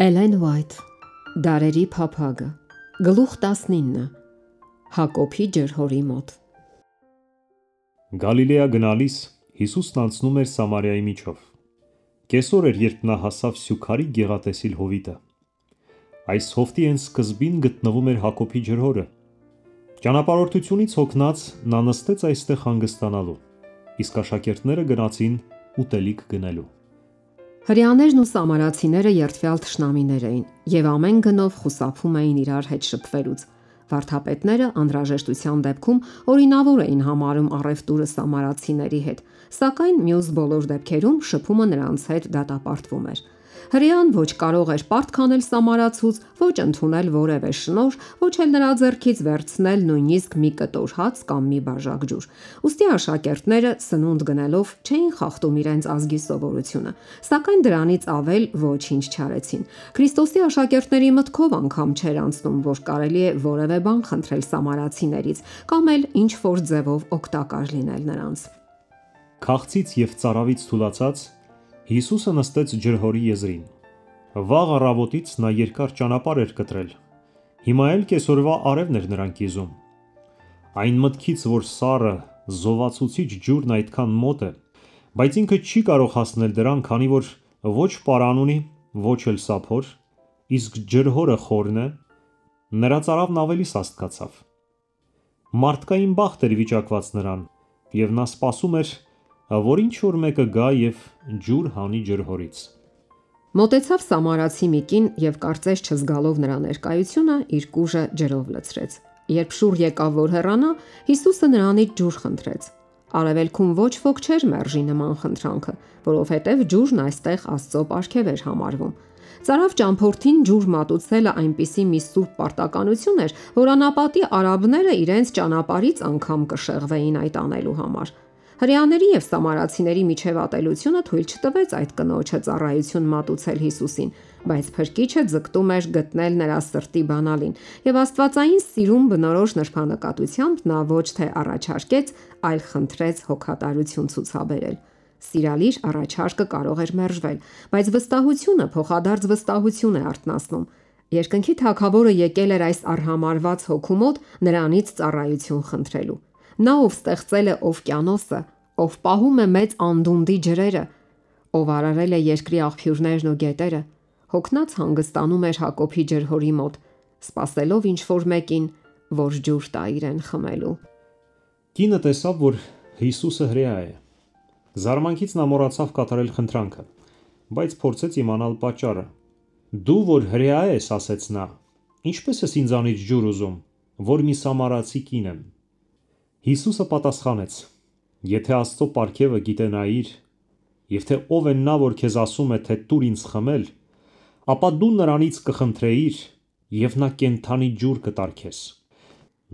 Էլեն Ուայթ, Դարերի փափագը, գլուխ 19, Հակոբի ջրհորի մոտ։ Գալիլեա գնալիս Հիսուսն անցնում էր Սամարիայի միջով։ Կեսօր էր, երբ նա հասավ Սյուքարի գեղատեսիլ հովիտը։ Այս հովտի հենց սկզբին գտնվում էր Հակոբի ջրհորը։ Ճանապարհորդությունից հոգնած նա նստեց այստեղ հանգստանալու, իսկ աշակերտները գնացին ուտելիք գնելու։ Հրեաներն ու սամարացիները երդվյալ թշնամիներ էին եւ ամեն գնով խուսափում էին իրար հետ շփվելուց։ Վարդապետները անհրաժեշտության դեպքում օրինավոր էին համարում առևտուրը սամարացիների հետ, սակայն մյուս բոլոր դեպքերում շփումը նրանց հետ դատապարտվում էր։ Հրեան ոչ կարող էր պարտք անել սամարացուց, ոչ ընդունել որևէ շնորհ, ոչ էլ նրա ձեռքից վերցնել նույնիսկ մի կտոր հաց կամ մի բաժակ ջուր։ Ուստի աշակերտները սնունդ գնելով չէին խախտում իրենց ազգի սովորությունը, սակայն դրանից ավել ոչինչ չարեցին։ Քրիստոսի աշակերտների մտքով անգամ չէր անցնում, որ կարելի է որևէ բան խնդրել սամարացիներից կամ էլ ինչ որ ձևով օգտակար լինել նրանց։ Քաղցից եւ ծարավից թուլացած Հիսուսը նստեց ջրհորի եզրին։ Վաղ առավոտից նա երկար ճանապարհ էր կտրել։ Հիմա էլ կեսօրվա արևն էր նրան կիզում։ Այն մտքից, որ սառը, զովացուցիչ ջուրն այդքան մոտ է, բայց ինքը չի կարող հասնել դրան, քանի որ ոչ պարան ունի, ոչ էլ սափոր, իսկ ջրհորը խորն է, նրա ծարավն ավելի սաստկացավ։ Մարդկային բախտ էր վիճակված նրան, եւ նա սպասում էր, որ ինչ որ մեկը գա եւ ջուր հանի ջրհորից։ Մոտեցավ սամարացի մի կին եւ կարծես չզգալով նրա ներկայությունը իր կուժը ջրով լցրեց։ Երբ շուռ եկավ որ հեռանա, Հիսուսը նրանից ջուր խնդրեց։ Արևելքում ոչ ոք չէր մերժի նման խնդրանքը, որովհետև ջուրն այստեղ Աստծո պարգև էր համարվում։ Ծարավ ճամփորդին ջուր մատուցելը այնպիսի մի սուրբ պարտականություն էր, որ անապատի արաբները իրենց ճանապարհից անգամ կշեղվեին այդ անելու համար։ Հրեաների եւ սամարացիների միջև ատելությունը թույլ չտվեց այդ կնոջը ծառայություն մատուցել Հիսուսին, բայց փրկիչը ձգտում էր գտնել նրա սրտի բանալին, եւ աստվածային սիրուն բնորոշ նրբանկատությամբ նա ոչ թե առաջարկեց, այլ խնդրեց հոգատարություն ցուցաբերել։ Սիրալիր առաջարկը կարող էր մերժվել, բայց վստահությունը փոխադարձ վստահություն է արթնացնում։ Երկնքի Թագավորը եկել էր այս արհամարված հոգու մոտ նրանից ծառայություն խնդրելու։ Նա ով ստեղծել է օվկիանոսը, ով պահում է մեծ անդունդի ջրերը, ով արարել է երկրի աղբյուրներն ու գետերը, հոգնած հանգստանում էր Հակոբի ջրհորի մոտ, սպասելով ինչ որ մեկին, որ ջուր տա իրեն խմելու։ Կինը տեսավ, որ Հիսուսը հրեա է։ Զարմանքից նա մոռացավ կատարել խնդրանքը, բայց փորձեց իմանալ պատճառը։ Դու որ հրեա ես, ասեց նա, ինչպես ես ինձանից ջուր ուզում, որ մի սամարացի կին եմ։ Հիսուսը պատասխանեց. Եթե Աստծո պարգևը գիտենայիր, եւ թե ով է նա, որ քեզ ասում է, թե տուր ինձ խմել, ապա դու նրանից կխնդրեիր, եւ նա կենդանի ջուր կտար քեզ։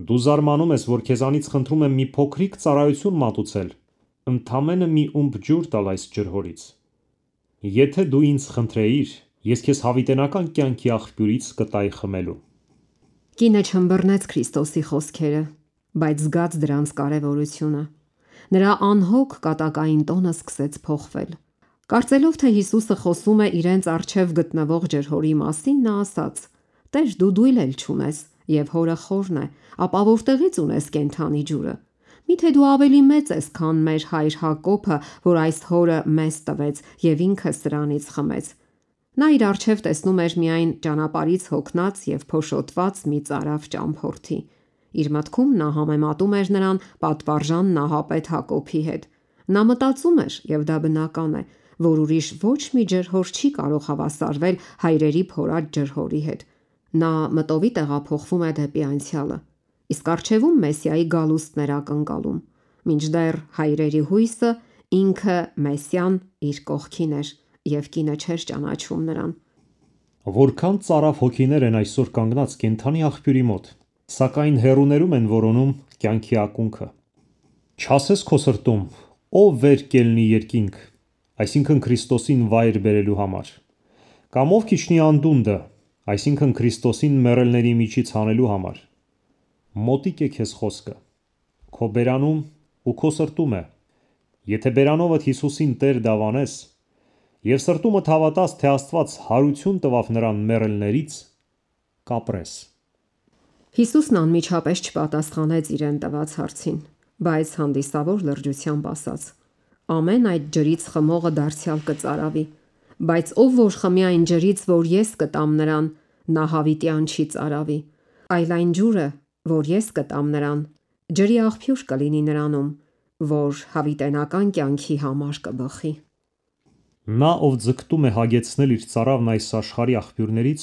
Դու զարմանում ես, որ քեզանից խնդրում եմ մի փոքրիկ ծառայություն մատուցել, ընդամենը մի ումբ ջուր տալ այս ջրհորից։ Եթե դու ինձ խնդրեիր, ես քեզ հավիտենական կյանքի աղբյուրից կտայի խմելու։ Կինը չըմբռնեց Քրիստոսի խոսքերը, բայց զգաց դրանց կարևորությունը։ Նրա անհոգ կատակային տոնը սկսեց փոխվել։ Կարծելով, թե Հիսուսը խոսում է իրենց առջև գտնվող ջրհորի մասին, նա ասաց. «Տեր, դու դույլ էլ չունես, եւ հորը խորն է, ապա որտեղից ունես կենդանի ջուրը։ Միթե դու ավելի մեծ ես, քան մեր հայր Հակոբը, որ այս հորը մեզ տվեց եւ ինքը սրանից խմեց»։ Նա իր առջև տեսնում էր միայն ճանապարհից հոգնած եւ փոշոտված մի ծարավ ճամփորդի։ Իր մտքում նա համեմատում էր նրան պատվարժան նահապետ Հակոբի հետ։ Նա մտածում էր, եւ դա բնական է, որ ուրիշ ոչ մի ջրհոր չի կարող հավասարվել հայրերի փորած ջրհորի հետ։ Նա մտովի տեղափոխվում է դեպի անցյալը, իսկ առջևում Մեսիայի գալուստն էր ակնկալում, մինչդեռ հայրերի հույսը ինքը Մեսիան իր կողքին էր, եւ կինը չէր ճանաչում նրան։ Որքան ծարավ հոգիներ են այսօր կանգնած կենդանի աղբյուրի մոտ, սակայն հեռուներում են որոնում կյանքի ակունքը։ Չասես քո սրտում, ով վեր կելնի երկինք, այսինքն Քրիստոսին վայր բերելու համար, կամ ով քիչնի անդունդը, այսինքն Քրիստոսին մեռելների միջից հանելու համար։ Մոտիկ է քեզ խոսքը, քո բերանում ու քո սրտում է։ Եթե բերանովդ Հիսուսին Տեր դավանես, Եվ սրտումդ հավատաց, թե Աստված հարություն տվավ նրան մեռելներից, կապրես։ Հիսուսն անմիջապես չպատասխանեց իրեն տված հարցին, բայց հանդիսավոր լրջությամբ ասաց. ամեն այդ ջրից խմողը դարձյալ կծարավի, բայց ով որ խմի այն ջրից, որ ես կտամ նրան, նա հավիտյան չի ծարավի, այլ այն ջուրը, որ ես կտամ նրան, ջրի աղբյուր կլինի նրանում, որ հավիտենական կյանքի համար կբխի։ Նա, ով ձգտում է հագեցնել իր ծարավն այս աշխարհի աղբյուրներից,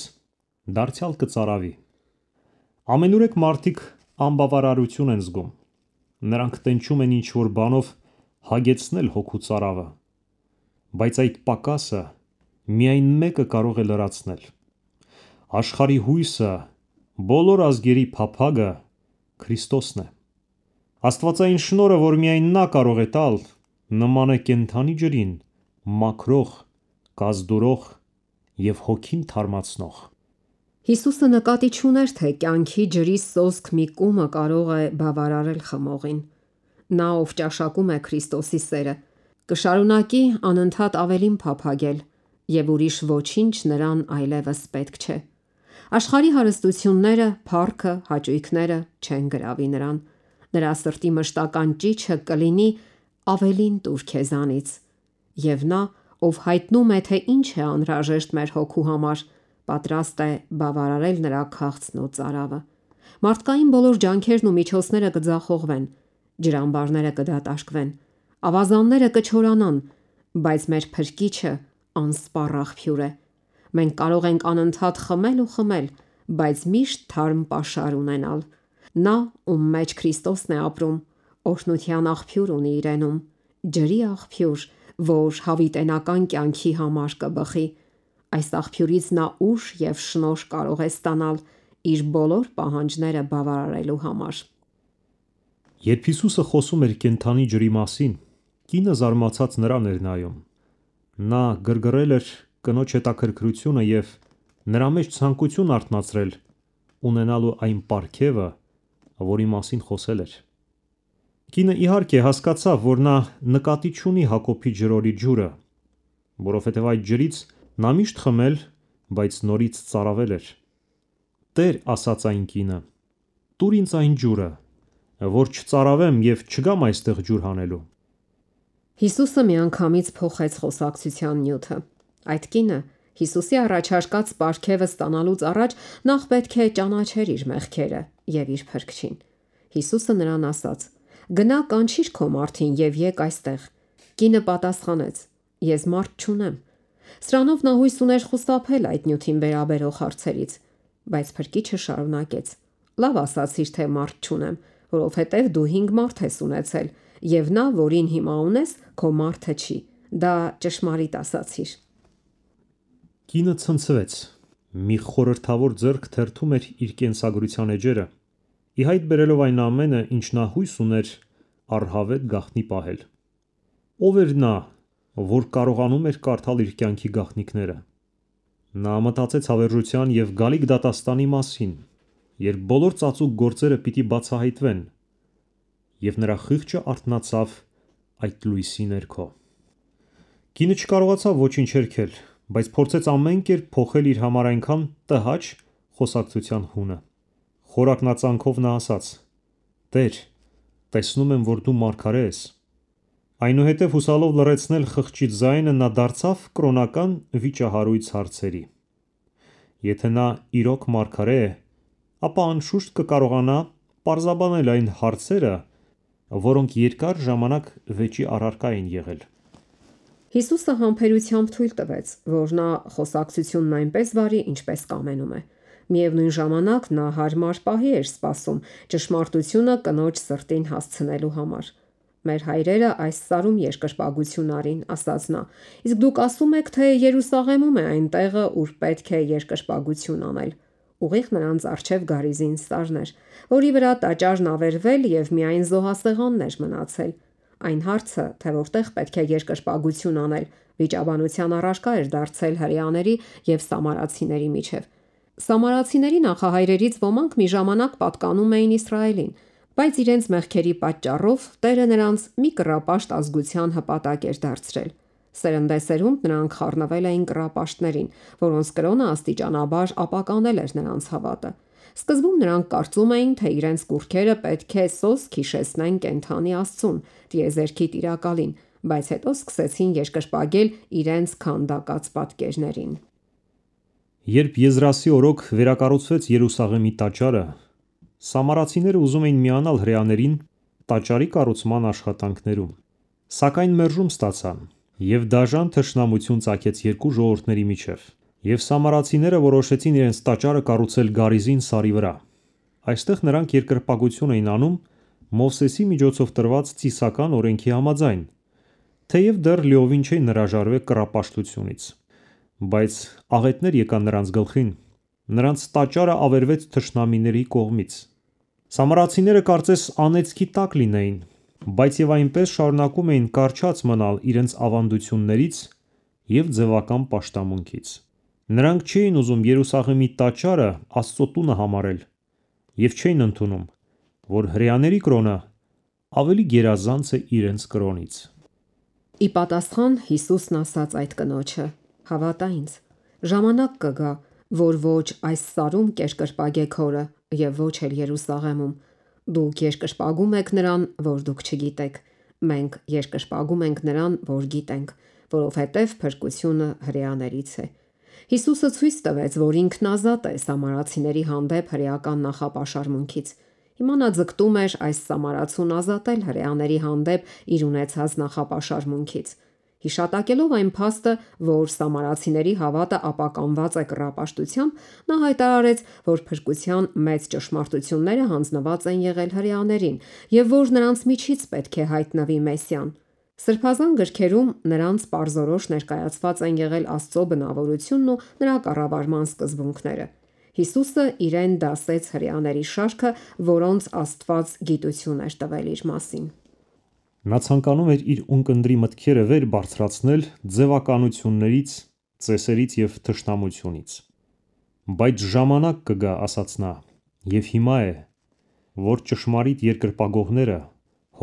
դարձյալ կծարավի։ Ամենուրեք մարդիկ անբավարարություն են զգում։ Նրանք տենչում են ինչ-որ բանով հագեցնել հոգու ծարավը, բայց այդ պակասը միայն մեկը կարող է լրացնել։ Աշխարհի հույսը, բոլոր ազգերի փափագը Քրիստոսն է։ Աստվածային շնորհը, որ միայն նա կարող է տալ, նման է կենդանի ջրին, մաքրող, կազդուրող և հոգին թարմացնող։ Հիսուսը նկատի չուներ, թե կյանքի ջրի սոսկ մի կումը կարող է բավարարել խմողին։ Նա, ով ճաշակում է Քրիստոսի սերը, կշարունակի անընդհատ ավելին փափագել, և ուրիշ ոչինչ նրան այլևս պետք չէ։ Աշխարհի հարստությունները, փառքը, հաճույքները չեն գրավի նրան։ Նրա սրտի մշտական ճիչը կլինի ավելին տուր քեզանից։ Եվ նա, ով հայտնում է, թե ինչ է անհրաժեշտ մեր հոգու համար, պատրաստ է բավարարել նրա քաղցն ու ծարավը։ Մարդկային բոլոր ջանքերն ու միջոցները կձախողվեն, ջրամբարները կդատարկվեն, ավազանները կչորանան, բայց մեր Փրկիչը անսպառ աղբյուր է։ Մենք կարող ենք անընդհատ խմել ու խմել, բայց միշտ թարմ պաշար ունենալ։ Նա, ում մեջ Քրիստոսն է ապրում, օրհնության աղբյուր ունի իրենում, ջրի աղբյուր, որ հավիտենական կյանքի համար կբխի։ Այս աղբյուրից նա ուժ և շնորհ կարող է ստանալ իր բոլոր պահանջները բավարարելու համար։ Երբ Հիսուսը խոսում էր կենդանի ջրի մասին, կինը զարմացած նրան էր նայում։ Նա գրգռել էր կնոջ հետաքրքրությունը և նրա մեջ ցանկություն արթնացրել ունենալու այն պարգևը, որի մասին խոսել էր։ Կինը իհարկե հասկացավ, որ նա նկատի չունի Հակոբի ջրորի ջուրը, որովհետև այդ ջրից նա միշտ խմել, բայց նորից ծարավել էր։ Տեր, ասաց այն կինը, տուր ինձ այն ջուրը, որ չծարավեմ և չգամ այստեղ ջուր հանելու։ Հիսուսը միանգամից փոխեց խոսակցության նյութը։ Այդ կինը Հիսուսի առաջարկած պարգևը ստանալուց առաջ նախ պետք է ճանաչեր իր մեղքերը և իր Փրկչին։ Հիսուսը նրան ասաց. «Գնա կանչիր քո մարդին և եկ այստեղ»։ Կինը պատասխանեց. «Ես մարդ չունեմ»։ Սրանով նա հույս ուներ խուսափել այդ նյութին վերաբերող հարցերից, բայց Փրկիչը շարունակեց. «Լավ ասացիր, թե մարդ չունեմ, որովհետև դու 5 մարդ ես ունեցել, և նա, որին հիմա ունես, քո մարդը չի։ Դա ճշմարիտ ասացիր»։ Կինը ցնցվեց։ Մի խորհրդավոր ձեռք թերթում էր իր կենսագրության էջերը, ի հայտ բերելով այն ամենը, ինչ նա հույս ուներ առհավետ գաղտնի պահել։ Ո՞վ էր նա, որ կարողանում էր կարդալ իր կյանքի գաղտնիքները։ Նա մտածեց հավերժության և գալիք դատաստանի մասին, երբ բոլոր ծածուկ գործերը պիտի բացահայտվեն, և նրա խիղճը արթնացավ այդ լույսի ներքո։ Կինը չկարողացավ ոչինչ հերքել, բայց փորձեց ամեն կերպ փոխել իր համար այնքան տհաճ խոսակցության հունը։ Խորակնածանքով նա ասաց. «Տեր, տեսնում եմ, որ դու մարգարե ես»։ Այնուհետև հուսալով լռեցնել խղճի ձայնը, նա դարձավ կրոնական վիճահարույց հարցերի։ Եթե նա իրոք մարգարե է, ապա անշուշտ կկարողանա պարզաբանել այն հարցերը, որոնք երկար ժամանակ վեճի առարկա էին եղել։ Հիսուսը համբերությամբ թույլ տվեց, որ նա խոսակցությունն այնպես վարի, ինչպես կամենում է։ Միևնույն ժամանակ նա հարմար պահի էր սպասում ճշմարտությունը կնոջ սրտին հասցնելու համար։ «Մեր հայրերը այս սարում երկրպագություն արին», ասաց նա, «իսկ դուք ասում եք, թե Երուսաղեմում է այն տեղը, ուր պետք է երկրպագություն անել»։ Ուղիղ նրանց առջև գարիզին սարն էր, որի վրա տաճարն ավերվել և միայն զոհասեղանն էր մնացել։ Այն հարցը, թե որտեղ պետք է երկրպագություն անել, վիճաբանության առարկա էր դարձել հրեաների և սամարացիների միջև։ Սամարացիների նախահայրերից ոմանք մի ժամանակ պատկանում էին Իսրայելին, բայց իրենց մեղքերի պատճառով Տերը նրանց մի կռապաշտ ազգության հպատակ էր դարձրել։ Սերնդեսերունդ նրանք խառնվել էին կռապաշտներին, որոնց կրոնը աստիճանաբար ապականել էր նրանց հավատը։ Սկզբում նրանք կարծում էին, թե իրենց կուռքերը պետք է սոսկ հիշեցնեն կենդանի Աստծուն, տիեզերքի Տիրակալին, բայց հետո սկսեցին երկրպագել իրենց քանդակած պատկերներին։ Երբ Եզրասի օրոք վերակառուցվեց Երուսաղեմի տաճարը, սամարացիները ուզում էին միանալ հրեաներին տաճարի կառուցման աշխատանքներում, սակայն մերժում ստացան, և դաժան թշնամություն ծագեց երկու ժողովուրդների միջև, և սամարացիները որոշեցին իրենց տաճարը կառուցել Գարիզին սարի վրա։ Այստեղ նրանք երկրպագություն էին անում Մովսեսի միջոցով տրված ծիսական օրենքի համաձայն, թեև դեռ լիովին չէին հրաժարվել կռապաշտությունից, բայց աղետներ եկան նրանց գլխին, նրանց տաճարը ավերվեց թշնամիների կողմից։ Սամարացիները կարծես անեծքի տակ լինեին, բայց և այնպես շարունակում էին կառչած մնալ իրենց ավանդություններից և ձևական պաշտամունքից։ Նրանք չէին ուզում Երուսաղեմի տաճարը Աստծո տունը համարել և չէին ընդունում, որ հրեաների կրոնը ավելի գերազանց է իրենց կրոնից։ Ի պատասխան Հիսուսն ասաց այդ կնոջը. «Հավատա ինձ, ժամանակ կգա, որ ոչ այս սարում կերկրպագեք հորը և ոչ էլ Երուսաղեմում։ Դուք երկրպագում եք նրան, որ դուք չգիտեք, մենք երկրպագում ենք նրան, որ գիտենք, որովհետև փրկությունը հրեաներից է»։ Հիսուսը ցույց տվեց, որ ինքն ազատ է սամարացիների հանդեպ հրեական նախապաշարմունքից։ Հիմա նա ձգտում էր այս սամարացուն ազատել հրեաների հանդեպ իր ունեցած նախապաշարմունքից։ Հիշատակելով այն փաստը, որ սամարացիների հավատը ապականված է կռապաշտությամբ, նա հայտարարեց, որ փրկության մեծ ճշմարտությունները հանձնված են եղել հրեաներին և որ նրանց միջից պետք է հայտնվի Մեսիան։ Սրբազան գրքերում նրանց պարզորոշ ներկայացված են եղել Աստծո բնավորությունն ու նրա կառավարման սկզբունքները։ Հիսուսը իրեն դասեց հրեաների շարքը, որոնց Աստված գիտություն էր տվել իր մասին։ Նա ցանկանում էր իր ունկնդրի մտքերը վեր բարձրացնել ձևականություններից, ծեսերից և թշնամությունից։ Բայց ժամանակ կգա, ասաց նա, և հիմա է, որ ճշմարիտ երկրպագողները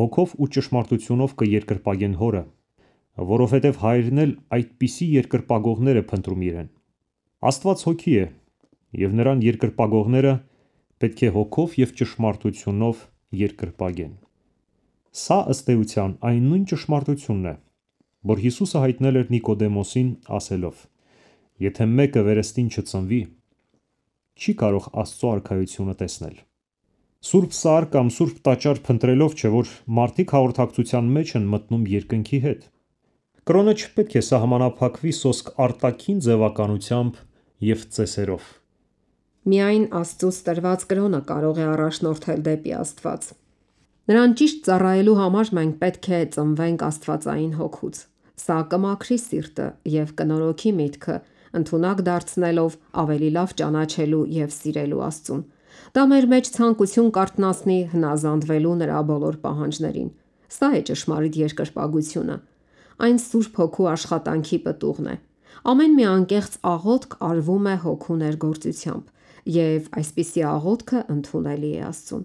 հոգով ու ճշմարտությունով կերկրպագեն հորը, որովհետև հայրն էլ այդպիսի երկրպագողներ է փնտրում իրեն։ Աստված հոգի է, և նրան երկրպագողները պետք է հոգով և ճշմարտությունով երկրպագեն։ Սա ըստ էության այն նույն ճշմարտությունն է, որ Հիսուսը հայտնել էր Նիկոդեմոսին ասելով. «Եթե մեկը վերստին չծնվի, չի կարող Աստծո արքայությունը տեսնել»։ Սուրբ Սար կամ Սուրբ Տաճար փնտրելով չէ, որ մարդիկ հաղորդակցության մեջ են մտնում երկնքի հետ։ Կրոնը չպետք է սահմանափակվի սոսկ արտաքին ձևականությամբ և ծեսերով։ Միայն Աստծուց տրված կրոնը կարող է առաջնորդել դեպի Աստված։ Նրան ճիշտ ծառայելու համար մենք պետք է ծնվենք Աստվածային հոգուց։ Սա կմաքրի սիրտը և կնորոգի միտքը, ընդունակ դարձնելով ավելի լավ ճանաչելու և սիրելու Աստծուն։ Դա մեր մեջ ցանկություն կարթնացնի հնազանդվելու նրա բոլոր պահանջներին։ Սա է ճշմարիտ երկրպագությունը։ Այն Սուրբ Հոգու աշխատանքի պտուղն է։ Ամեն մի անկեղծ աղոթք արվում է Հոգու ներգործությամբ, և այսպիսի աղոթքը ընդունելի է Աստծուն։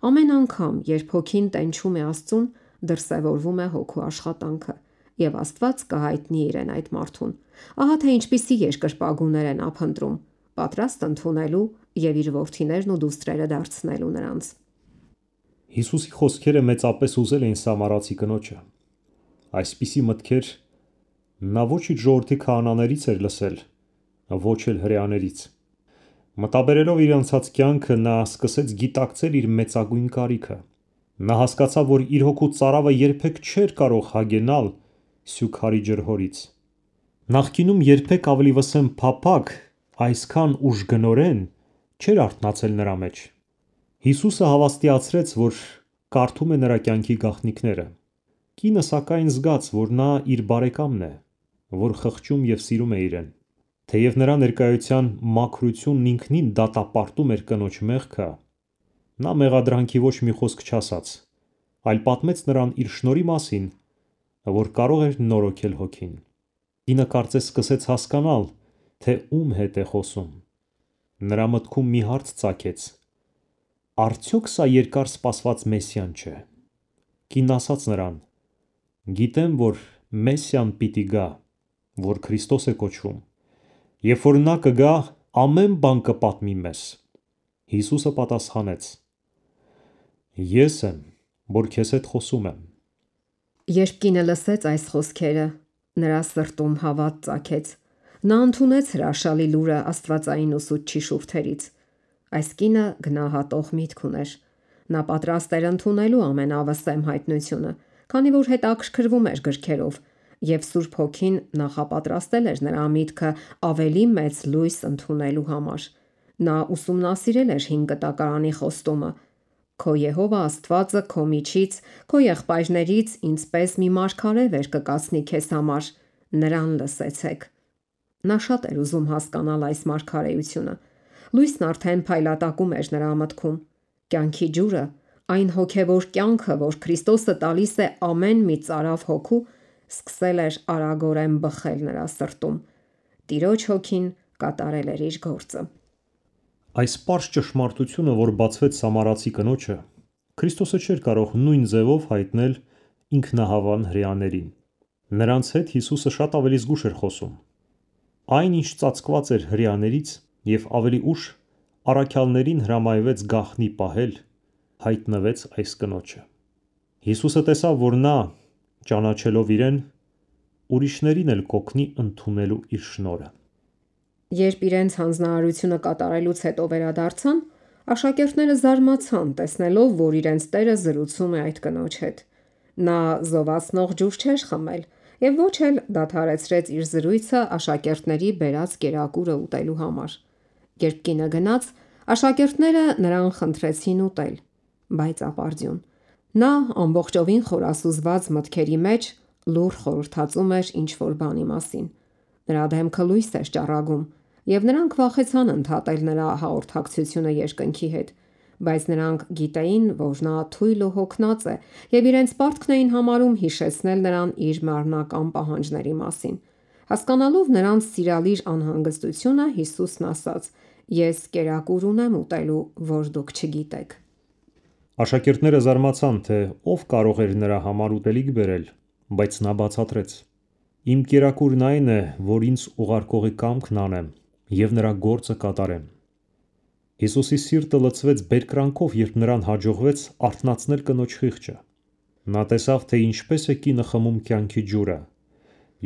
Ամեն անգամ, երբ Հոգին տենչում է Աստծուն, դրսևորվում է Հոգու աշխատանքը, և Աստված կհայտնի իրեն այդ մարդուն։ Ահա թե ինչպիսի երկրպագուներ է նա փնտրում, պատրաստ ընդունելու և իր որդիներն ու դուստրերը դարձնելու նրանց։ Հիսուսի խոսքերը մեծապես ուզել էին սամարացի կնոջը։ Այսպիսի մտքեր նա ոչ իր ժողովրդի քահանաներից էր լսել, ոչ էլ հրեաներից։ Մտաբերելով իր անցած կյանքը, նա սկսեց գիտակցել իր մեծագույն կարիքը։ Նա հասկացավ, որ իր հոգու ծարավը երբեք չէր կարող հագենալ սյուքարի ջրհորից։ Նախկինում երբեք ավելի վսեմ փափագ, այսքան ուժգնորեն չէր արթնացել նրա մեջ։ Հիսուսը հավաստիացրեց, որ կարդում է նրա կյանքի գաղտնիքները։ Կինը սակայն զգաց, որ նա իր բարեկամն է, որ խղճում և սիրում է իրեն։ Թեև նրա ներկայության մաքրությունն ինքնին դատապարտում էր կնոջ մեղքը, նա մեղադրանքի ոչ մի խոսք չասաց, այլ պատմեց նրան իր շնորհի մասին, որ կարող էր նորոգել հոգին։ Կինը կարծես սկսեց հասկանալ, թե ում հետ է խոսում։ Նրա մտքում մի հարց ծագեց. արդյոք սա երկար սպասված Մեսիան չէ։ Կինն ասաց նրան. «Գիտեմ, որ Մեսիան պիտի գա, որ Քրիստոս է կոչվում, երբ որ նա կգա, ամեն բան կպատմի մեզ։ Հիսուսը պատասխանեց. Ես եմ, որ քեզ հետ խոսում եմ։ Երբ կինը լսեց այս խոսքերը, նրա սրտում հավատ ծագեց։ Նա ընդունեց հրաշալի լուրը աստվածային ուսուցչի շուրթերից։ Այս կինը գնահատող միտք ուներ։ Նա պատրաստ էր ընդունելու ամենավսեմ հայտնությունը, քանի որ հետաքրքրվում էր գրքերով, եւ Սուրբ Հոգին նախապատրաստել էր նրա միտքը ավելի մեծ լույս ընդունելու համար։ Նա ուսումնասիրել էր 5 կտակարանի խոստումը. Քո Եհովա Աստվածը քո միջից, քո եղբայրներից ինձպես մի մարգարե վեր կկացնի քեզ համար, նրան լսեցեք։ Նա շատ էր ուզում հասկանալ այս մարգարեությունը։ Լույսն արդեն փայլատակում էր նրա մտքում։ Կյանքի ջուրը, այն հոգևոր կյանքը, որ Քրիստոսը տալիս է ամեն մի ծարավ հոգու, սկսել էր արագորեն բխել նրա սրտում։ Տիրոջ հոգին կատարել էր իր գործը։ Այս պարզ ճշմարտությունը, որ բացվեց Սամարացի կնոջը, Քրիստոսը չէր կարող նույն ձևով հայտնել ինքնահավան հրեաներին։ Նրանց հետ Հիսուսը շատ ավելի զգուշ էր խոսում։ Այն, ինչ ծածկված էր հրեաներից եւ ավելի ուշ առաքյալներին հրամայվեց գաղտնի պահել, հայտնվեց այս կնոջը։ Հիսուսը տեսավ, որ նա, ճանաչելով իրեն, ուրիշներին էլ կօգնի ընդունելու իր շնորհը։ Երբ իրենց հանձնարարությունը կատարելուց հետո վերադարձան, աշակերտները զարմացան, տեսնելով, որ իրենց Տերը զրուցում է այդ կնոջ հետ։ Նա զովացնող ջուր չէր խմել եւ ոչ էլ դադարեցրեց իր զրույցը աշակերտների բերած կերակուրը ուտելու համար։ Երբ կինը գնաց, աշակերտները նրան խնդրեցին ուտել, բայց ապարդյուն։ Նա ամբողջովին խորասուզված մտքերի մեջ լուռ խորհրդածում էր ինչ-որ բանի մասին։ Նրա դեմքը լույս էր ճառագում, եւ նրանք վախեցան ընդհատել նրա հաղորդակցությունը երկնքի հետ, բայց նրանք գիտեին, որ նա թույլ ու հոգնած է, եւ իրենց պարտքն էին համարում հիշեցնել նրան իր մարմնական պահանջների մասին։ Հասկանալով նրանց սիրալիր անհանգստությունը, Հիսուսն ասաց. Ես կերակուր ունեմ ուտելու, որ դուք չգիտեք։ Աշակերտները զարմացան, թե ով կարող էր նրա համար ուտելիք բերել, բայց նա բացատրեց. Իմ կերակուրն այն է, որ ինձ ուղարկողի կամքն անեմ եւ նրա գործը կատարեմ։ Հիսուսի սիրտը լցվեց բերկրանքով, երբ նրան հաջողվեց արթնացնել կնոջ խիղճը։ Նա տեսավ, թե ինչպես է կինը խմում կյանքի ջուրը,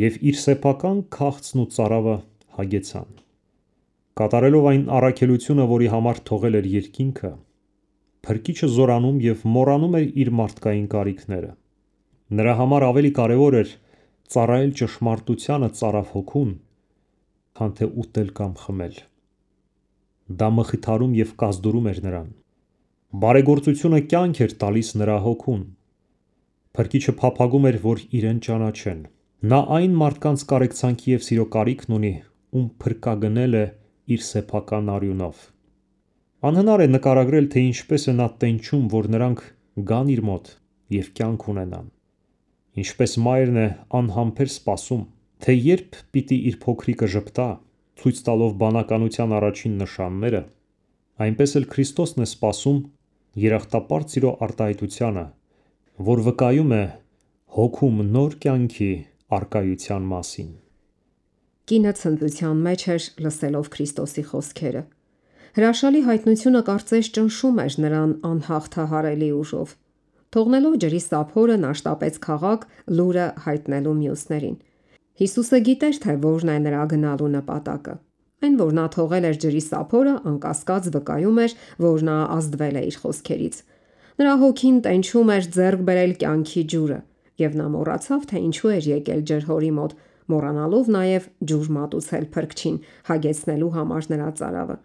եւ իր սեփական քաղցն ու ծարավը հագեցան։ Կատարելով այն առաքելությունը, որի համար թողել էր երկինքը, Փրկիչը զորանում եւ մոռանում էր իր մարդկային կարիքները։ Նրա համար ավելի կարևոր էր ծառայել ճշմարտությանը ծարավ հոգուն, քան թե ուտել կամ խմել։ Դա մխիթարում եւ կազդուրում էր նրան։ Բարեգործությունը կյանք էր տալիս նրա հոգուն։ Փրկիչը փափագում էր, որ իրեն ճանաչեն։ Նա այն մարդկանց կարեկցանքի եւ սիրո կարիքն ունի, ում փրկագնել է իր սեփական արյունով։ Անհնար է նկարագրել, թե ինչպես է նա տենչում, որ նրանք գան իր մոտ եւ կյանք ունենան։ Ինչպես մայրն է անհամբեր սպասում, թե երբ պիտի իր փոքրիկը ժպտա, ցույց տալով բանականության առաջին նշանները, այնպես էլ Քրիստոսն է սպասում երախտապարտ սիրո արտահայտությանը, որ վկայում է հոգում նոր կյանքի արկայության մասին։ Կինը ցնծության մեջ էր լսելով Քրիստոսի խոսքերը։ Հրաշալի հայտնությունը կարծես ճնշում էր նրան անհաղթահարելի ուժով։ Թողնելով ջրի սափորը, նա շտապեց քաղաք լուրը հայտնելու մյուսներին։ Հիսուսը գիտեր, թե որն է նրա գնալու նպատակը։ Այն, որ նա թողել էր ջրի սափորը, անկասկած վկայում էր, որ նա ազդվել է իր խոսքերից։ Նրա հոգին տենչում էր ձեռք բերել կյանքի ջուրը, եւ նա մոռացավ, թե ինչու էր եկել ջրհորի մոտ, մոռանալով նաեւ ջուր մատուցել Փրկչին, հագեցնելու համար նրա ծարավը։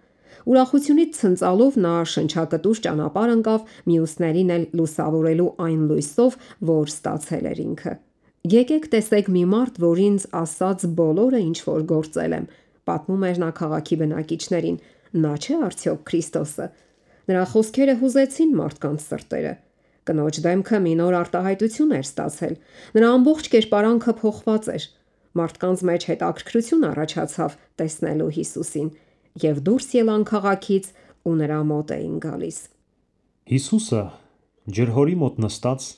Ուրախությունից ցնծալով նա շնչակտուր ճանապարհ ընկավ մյուսներին էլ լուսավորելու այն լույսով, որ ստացել էր ինքը։ Եկեք տեսեք մի մարդ, որ ինձ ասած բոլորը ինչ որ գործել եմ, պատմում էր նա քաղաքի բնակիչներին։ Նա չէ արդյոք Քրիստոսը։ Նրա խոսքերը հուզեցին մարդկանց սրտերը։ Կնոջ դեմքը մի նոր արտահայտություն էր ստացել։ Նրա ամբողջ կերպարանքը փոխված էր։ Մարդկանց մեջ հետաքրքրություն առաջացավ տեսնելու Հիսուսին, եւ դուրս ելան քաղաքից ու նրա մոտ էին գալիս։ Հիսուսը ջրհորի մոտ նստած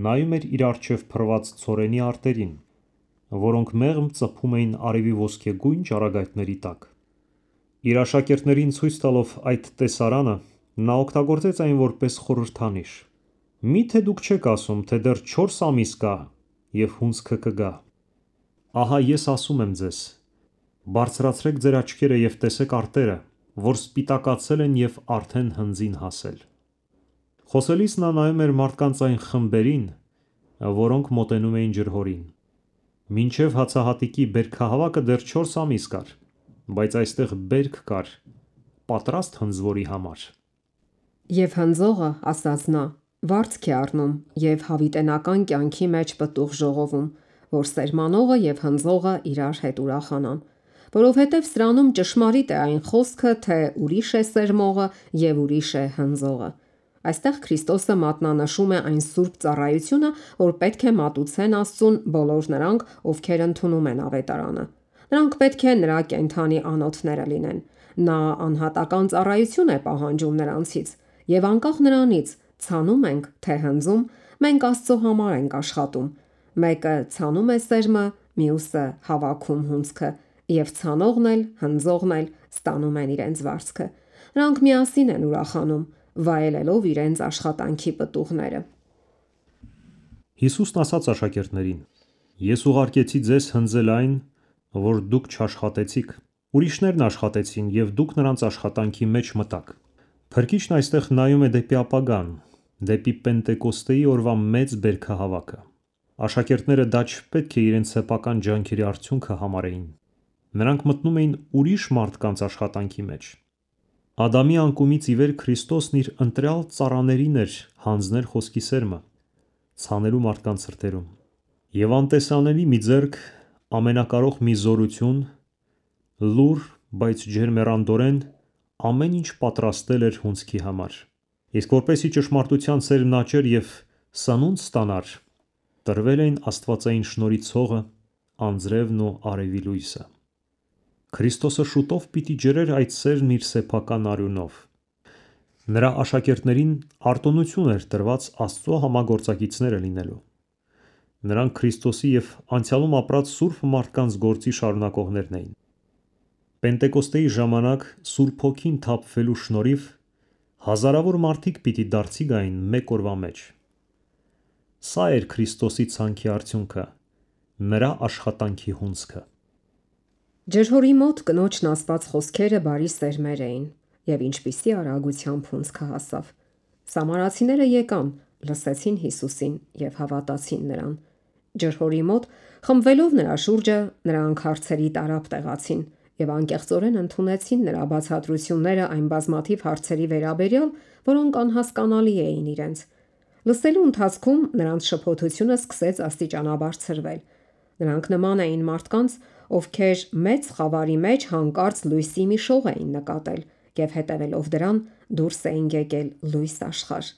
նայում էր իր առջև փռված ցորենի արտերին որոնք մեղմ ծփում էին արևի ոսկեգույն ճառագայթների տակ։ Իր աշակերտներին ցույց տալով այդ տեսարանը, նա օգտագործեց այն որպես խորհրդանիշ. «Միթե դուք չեք ասում, թե դեռ 4 ամիս կա և հունձքը կգա։ Ահա ես ասում եմ ձեզ. բարձրացրեք ձեր աչքերը և տեսեք արտերը, որ սպիտակացել են և արդեն հնձին հասել»։ Խոսելիս նա նայում էր մարդկանց այն խմբերին, որոնք մոտենում էին ջրհորին։ Մինչև հացահատիկի բերքահավաքը դեռ 4 ամիս կար, բայց այստեղ բերք կար պատրաստ հնձվորի համար։ Եվ հնձողը, ասաց նա, վարձք է առնում և հավիտենական կյանքի մեջ պտուղ ժողովում, որ սերմանողը և հնձողը իրար հետ ուրախանան, որովհետև սրանում ճշմարիտ է այն խոսքը, թե ուրիշ է սերմողը և ուրիշ է հնձողը։ Այստեղ Քրիստոսը մատնանշում է այն սուրբ ծառայությունը, որ պետք է մատուցեն Աստծուն բոլոր նրանք, ովքեր ընդունում են ավետարանը։ Նրանք պետք է նրա կենդանի անոթները լինեն։ Նա անհատական ծառայություն է պահանջում նրանցից, և անկախ նրանից ցանում ենք, թե հնձում, մենք Աստծո համար ենք աշխատում։ Մեկը ցանում է սերմը, մյուսը հավաքում հունձքը, և ցանողն էլ, հնձողն էլ ստանում են իրենց վարձքը։ Նրանք միասին են ուրախանում, վայելելով իրենց աշխատանքի պտուղները։ Հիսուսն ասաց աշակերտներին. «Ես ուղարկեցի ձեզ հնձել այն, որ դուք չաշխատեցիք։ Ուրիշներն աշխատեցին, և դուք նրանց աշխատանքի մեջ մտաք»։ Փրկիչն այստեղ նայում է դեպի ապագան, դեպի Պենտեկոստեի օրվա մեծ բերքահավաքը։ Աշակերտները դա չպետք է իրենց սեփական ջանքերի արդյունքը համարեին։ Նրանք մտնում էին ուրիշ մարդկանց աշխատանքի մեջ։ Ադամի անկումից ի վեր Քրիստոսն իր ընտրյալ ծառաներին էր հանձնել խոսքի սերմը, ցանելու մարդկանց սրտերում։ Եվ անտեսանելի մի ձեռք, ամենակարող մի զորություն, լուռ, բայց ջերմեռանդորեն ամեն ինչ պատրաստել էր հունձքի համար։ Իսկ որպեսզի ճշմարտության սերմն աճեր և սնունդ ստանար, տրվել էին աստվածային շնորհի ցողը, անձրևն ու արևի լույսը։ Քրիստոսը շուտով պիտի ջրեր այդ սերմն իր սեփական արյունով։ Նրա աշակերտներին արտոնություն էր տրված Աստծո համագործակիցները լինելու։ Նրանք Քրիստոսի և անցյալում ապրած սուրբ մարդկանց գործի շարունակողներն էին։ Պենտեկոստեի ժամանակ Սուրբ Հոգին թափվելու շնորհիվ հազարավոր մարդիկ պիտի դարձի գային մեկ օրվա մեջ։ Սա էր Քրիստոսի ցանքի արդյունքը, նրա աշխատանքի հունձքը։ Ջրհորի մոտ կնոջն ասված խոսքերը բարի սերմեր էին, և ինչպիսի արագությամբ հունձքը հասավ։ Սամարացիները եկան, լսեցին Հիսուսին և հավատացին նրան։ Ջրհորի մոտ խմբվելով նրա շուրջը, նրանք հարցերի տարափ տեղացին և անկեղծորեն ընդունեցին նրա բացատրությունները այն բազմաթիվ հարցերի վերաբերյալ, որոնք անհասկանալի էին իրենց։ Լսելու ընթացքում նրանց շփոթությունը սկսեց աստիճանաբար ցրվել։ Նրանք նման էին մարդկանց, ովքեր մեծ խավարի մեջ հանկարծ լույսի մի շող էին նկատել և հետևելով դրան դուրս էին եկել լույս աշխարհ։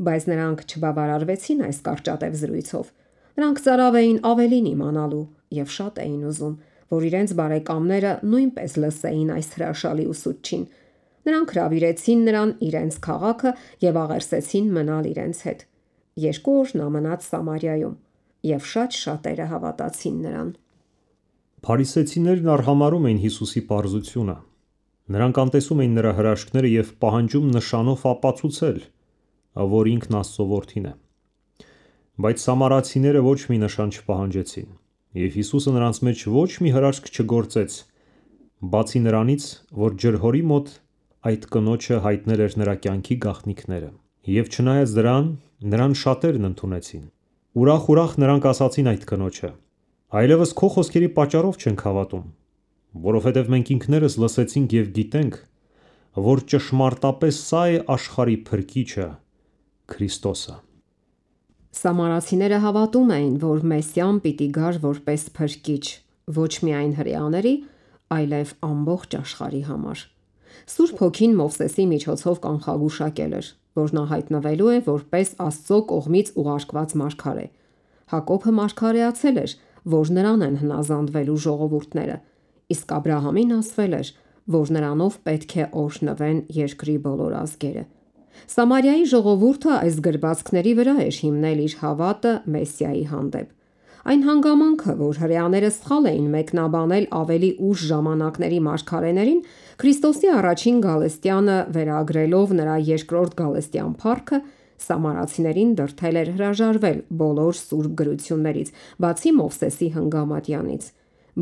Բայց նրանք չբավարարվեցին այս կարճատև զրույցով։ Նրանք ծարավ էին ավելին իմանալու և շատ էին ուզում, որ իրենց բարեկամները նույնպես լսեին այս հրաշալի ուսուցչին։ Նրանք հրավիրեցին նրան իրենց քաղաքը և աղերսեցին մնալ իրենց հետ։ 2 օր նա մնաց Սամարիայում, և շատ շատերը հավատացին նրան։ Փարիսեցիներն արհամարհում էին Հիսուսի պարզությունը։ Նրանք անտեսում էին նրա հրաշքները և պահանջում նշանով ապացուցել, որ ինքն Աստծո որդին է։ Բայց սամարացիները ոչ մի նշան չպահանջեցին, և Հիսուսը նրանց մեջ ոչ մի հրաշք չգործեց, բացի նրանից, որ ջրհորի մոտ այդ կնոջը հայտնել էր նրա կյանքի գաղտնիքները։ Եվ չնայած դրան, նրան շատերն ընդունեցին։ Ուրախ-ուրախ նրանք ասացին այդ կնոջը. «Այլևս քո խոսքերի պատճառով չենք հավատում, որովհետև մենք ինքներս լսեցինք և գիտենք, որ ճշմարտապես սա է աշխարհի Փրկիչը, Քրիստոսը»։ Սամարացիները հավատում էին, որ Մեսիան պիտի գար որպես փրկիչ ոչ միայն հրեաների, այլև ամբողջ աշխարհի համար։ Սուրբ Հոգին Մովսեսի միջոցով կանխագուշակել էր, որ նա հայտնվելու է որպես Աստծո կողմից ուղարկված մարգարե։ Հակոբը մարգարեացել էր, որ նրան են հնազանդվելու ժողովուրդները, իսկ Աբրահամին ասվել էր, որ նրանով պետք է օրհնվեն երկրի բոլոր ազգերը։ Սամարիայի ժողովուրդը այս գրվածքների վրա էր հիմնել իր հավատը Մեսիայի հանդեպ։ Այն հանգամանքը, որ հրեաները սխալ էին մեկնաբանել ավելի ուշ ժամանակների մարգարեներին, Քրիստոսի առաջին գալստյանը վերագրելով նրա երկրորդ գալստյան փառքը, սամարացիներին դրդել էր հրաժարվել բոլոր սուրբ գրություններից, բացի Մովսեսի հնգամատյանից։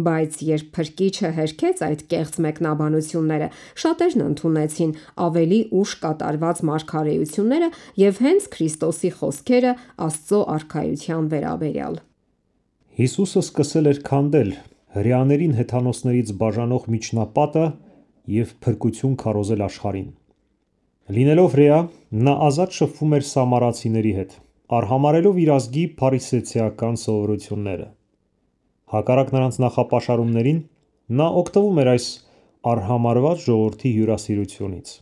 Բայց երբ Փրկիչը հերքեց այդ կեղծ մեկնաբանությունները, շատերն ընդունեցին ավելի ուշ կատարված մարգարեությունները և հենց Քրիստոսի խոսքերը Աստծո արքայության վերաբերյալ։ Հիսուսը սկսել էր քանդել հրեաներին հեթանոսներից բաժանող միջնապատը և փրկություն քարոզել աշխարհին։ Լինելով հրեա, նա ազատ շփվում էր սամարացիների հետ, արհամարհելով իր ազգի փարիսեցիական սովորությունները։ Հակառակ նրանց նախապաշարումներին, նա օգտվում էր այս արհամարհված ժողովրդի հյուրասիրությունից։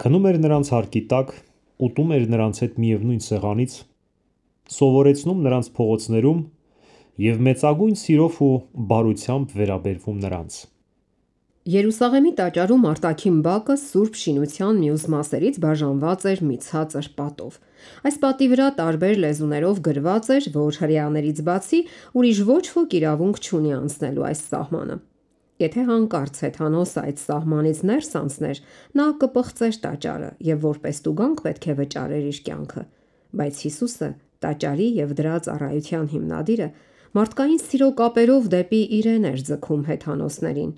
Քնում էր նրանց հարկի տակ, ուտում էր նրանց հետ միևնույն սեղանից, սովորեցնում նրանց փողոցներում և մեծագույն սիրով ու բարությամբ վերաբերվում նրանց։ Երուսաղեմի տաճարում արտաքին բակը Սուրբ Շինության մյուս մասերից բաժանված էր մի ցածր պատով։ Այս պատի վրա տարբեր լեզուներով գրված էր, որ հրեաներից բացի ուրիշ ոչ ոք իրավունք չունի անցնելու այս սահմանը։ Եթե հանկարծ հեթանոսը այդ սահմանից ներս անցներ, նա կպղծեր տաճարը և որպես տուգանք պետք է վճարեր իր կյանքը։ Բայց Հիսուսը, տաճարի և դրա ծառայության հիմնադիրը, մարդկային սիրո կապերով դեպի իրեն էր ձգում հեթանոսներին։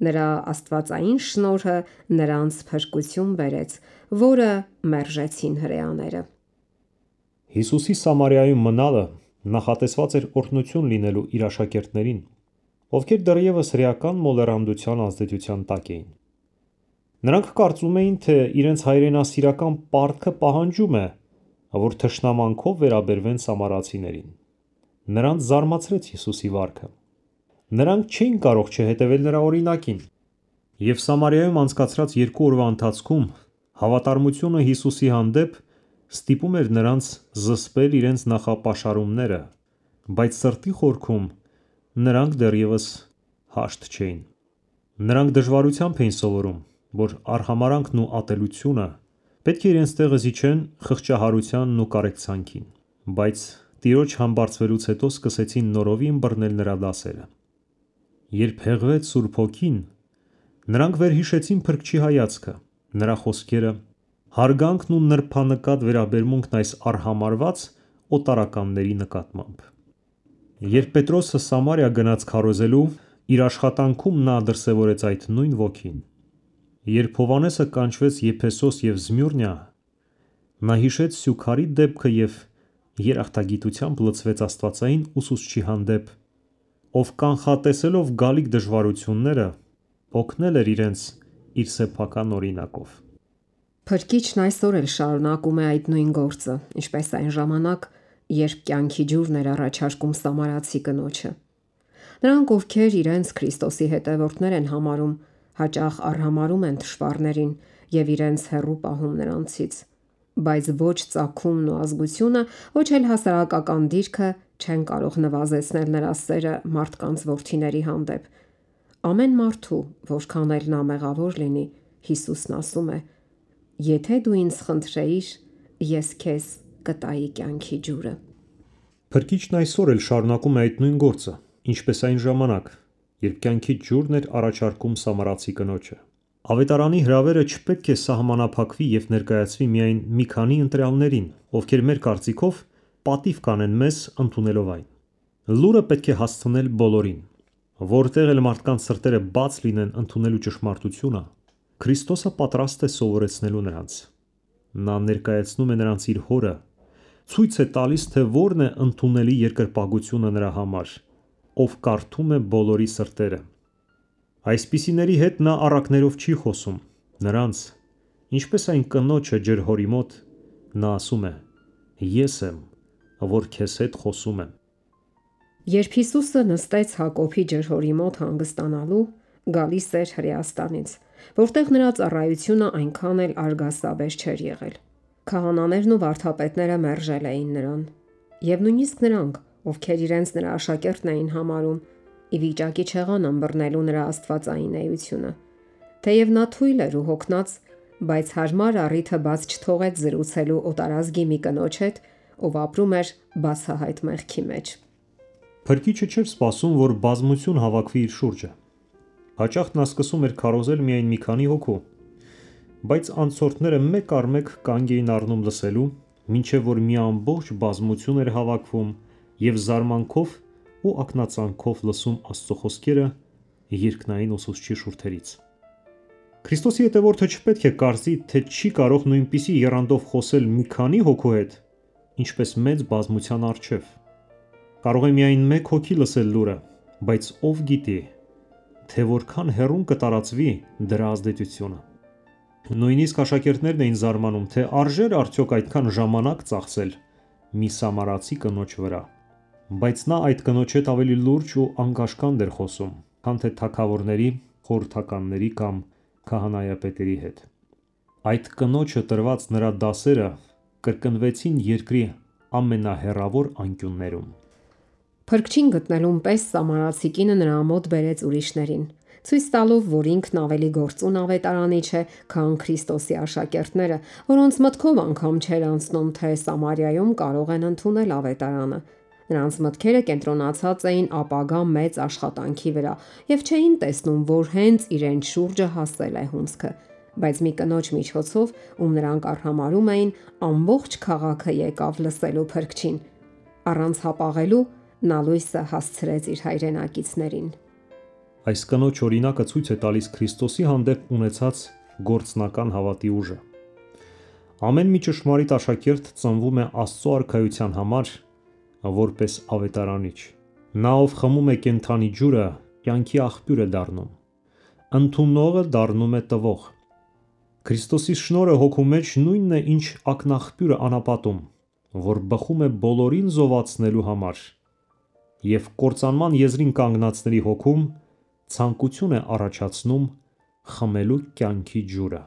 Նրա աստվածային շնորհը նրանց փրկություն բերեց, որը մերժեցին հրեաները։ Հիսուսի Սամարիայում մնալը նախատեսված էր օրհնություն լինելու իր աշակերտներին, ովքեր դեռևս հրեական մոլեռանդության ազդեցության տակ էին։ Նրանք կարծում էին, թե իրենց հայրենասիրական պարտքը պահանջում է, որ թշնամանքով վերաբերվեն սամարացիներին։ Նրանց զարմացրեց Հիսուսի վարքը։ Նրանք չէին կարող չհետևել նրա օրինակին։ Եվ Սամարիայում անցկացրած 2 օրվա ընթացքում հավատարմությունը Հիսուսի հանդեպ ստիպում էր նրանց զսպել իրենց նախապաշարումները, բայց սրտի խորքում նրանք դեռևս հաշտ չէին։ Նրանք դժվարությամբ էին սովորում, որ արհամարհանքն ու ատելությունը պետք է իրենց տեղը զիջեն խղճահարությանն ու կարեկցանքին, բայց Տիրոջ համբարձվելուց հետո սկսեցին նորովի ըմբռնել նրա դասերը։ Երբ հեղվեց Սուրբ Հոգին, նրանք վերհիշեցին Փրկչի հայացքը, նրա խոսքերը, հարգանքն ու նրբանկատ վերաբերմունքն այս արհամարհված օտարականների նկատմամբ։ Երբ Պետրոսը Սամարիա գնաց քարոզելու, իր աշխատանքում նա դրսևորեց այդ նույն ոգին։ Երբ Հովհաննեսը կանչվեց Եփեսոս և Զմյուրնիա, նա հիշեց Սյուքարի դեպքը և երախտագիտությամբ լցվեց աստվածային ուսուցչի հանդեպ, ով կանխատեսելով գալիք դժվարությունները, օգնել էր իրենց իր սեփական օրինակով։ Փրկիչն այսօր էլ շարունակում է այդ նույն գործը, ինչպես այն ժամանակ, երբ կյանքի ջուրն էր առաջարկում սամարացի կնոջը։ Նրանք, ովքեր իրենց Քրիստոսի հետևորդներ են համարում, հաճախ արհամարհում են թշվառներին և իրենց հեռու պահում նրանցից, բայց ոչ ծագումն ու ազգությունը, ոչ էլ հասարակական դիրքը չեն կարող նվազեցնել նրա սերը մարդկանց որդիների հանդեպ։ Ամեն մարդու, որքան էլ նա մեղավոր լինի, Հիսուսն ասում է. «Եթե դու ինձ խնդրեիր, ես քեզ կտայի կյանքի ջուրը»։ Փրկիչն այսօր էլ շարունակում է այդ նույն գործը, ինչպես այն ժամանակ, երբ կյանքի ջուրն էր առաջարկում սամարացի կնոջը։ Ավետարանի հրավերը չպետք է սահմանափակվի և ներկայացվի միայն մի քանի ընտրյալներին, ովքեր մեր կարծիքով պատիվ կանեն մեզ ընդունելով այն։ Լուրը պետք է հասցնել բոլորին։ Որտեղ էլ մարդկանց սրտերը բաց լինեն ընդունելու ճշմարտությունը, Քրիստոսը պատրաստ է սովորեցնելու նրանց։ Նա ներկայացնում է նրանց իր հորը, ցույց է տալիս, թե որն է ընդունելի երկրպագությունը նրա համար, ով կարդում է բոլորի սրտերը։ Այսպիսիների հետ նա առակներով չի խոսում, նրանց, ինչպես այն կնոջը ջրհորի մոտ, նա ասում է. «Ես եմ, որ քեզ հետ խոսում եմ»։ Երբ Հիսուսը նստեց Հակոբի ջրհորի մոտ հանգստանալու, գալիս էր Հրեաստանից, որտեղ նրա ծառայությունը այնքան էլ արգասաբեր չէր եղել։ Քահանաներն ու վարդապետները մերժել էին նրան, և նույնիսկ նրանք, ովքեր իրենց նրա աշակերտն էին համարում, ի վիճակի չեղան ըմբռնելու նրա աստվածային էությունը։ Թեև նա թույլ էր ու հոգնած, բայց հարմար առիթը բաց չթողեց զրուցելու օտարազգի մի կնոջ հետ, ով ապրում էր բացահայտ մեղքի մեջ։ Փրկիչը չէր սպասում, որ բազմություն հավաքվի իր շուրջը։ Հաճախ նա սկսում էր քարոզել միայն մի քանի հոգու, բայց անցորդները մեկ առ մեկ կանգ էին առնում լսելու, մինչև որ մի ամբողջ բազմություն էր հավաքվում և զարմանքով ու ակնածանքով լսում Աստծո խոսքերը երկնային ուսուցչի շուրթերից։ Քրիստոսի հետևորդը չպետք է կարծի, թե չի կարող նույնպիսի եռանդով խոսել մի քանի հոգու հետ, ինչպես մեծ բազմության առջև։ Կարող է միայն մեկ հոգի լսել լուրը, բայց ով գիտի, թե որքան հեռուն կտարածվի դրա ազդեցությունը։ Նույնիսկ աշակերտներն էին զարմանում, թե արժե՞ր արդյոք այդքան ժամանակ ծախսել մի սամարացի կնոջ վրա։ Բայց նա այդ կնոջ հետ ավելի լուրջ ու անկաշկանդ էր խոսում, քան թե թագավորների, խորհրդականների կամ քահանայապետերի հետ։ Այդ կնոջը տրված նրա դասերը կրկնվեցին երկրի ամենահեռավոր անկյուններում։ Փրկչին գտնելուն պես սամարացի կինը նրա մոտ բերեց ուրիշներին, ցույց տալով, որ ինքն ավելի գործուն ավետարանիչ է, քան Քրիստոսի աշակերտները, որոնց մտքով անգամ չէր անցնում, թե Սամարիայում կարող են ընդունել ավետարանը։ Նրանց մտքերը կենտրոնացած էին ապագա մեծ աշխատանքի վրա եւ չէին տեսնում, որ հենց իրենց շուրջը հասել է հունձքը, բայց մի կնոջ միջոցով, ում նրանք արհամարհում էին, ամբողջ քաղաքը եկավ լսելու Փրկչին։ Առանց հապաղելու նա լույսը հասցրեց իր հայրենակիցներին։ Այս կնոջ օրինակը ցույց է տալիս Քրիստոսի հանդեպ ունեցած գործնական հավատի ուժը։ Ամեն մի ճշմարիտ աշակերտ ծնվում է Աստծո արքայության համար, որպես ավետարանիչ։ Նա, ով խմում է կենդանի ջուրը, կյանքի աղբյուր է դառնում։ Ընդունողը դառնում է տվող։ Քրիստոսի շնորհը հոգու մեջ նույնն է, ինչ ակնաղբյուրը անապատում, որ բխում է բոլորին զովացնելու համար, և կործանման եզրին կանգնածների հոգում ցանկություն է առաջացնում խմելու կյանքի ջուրը։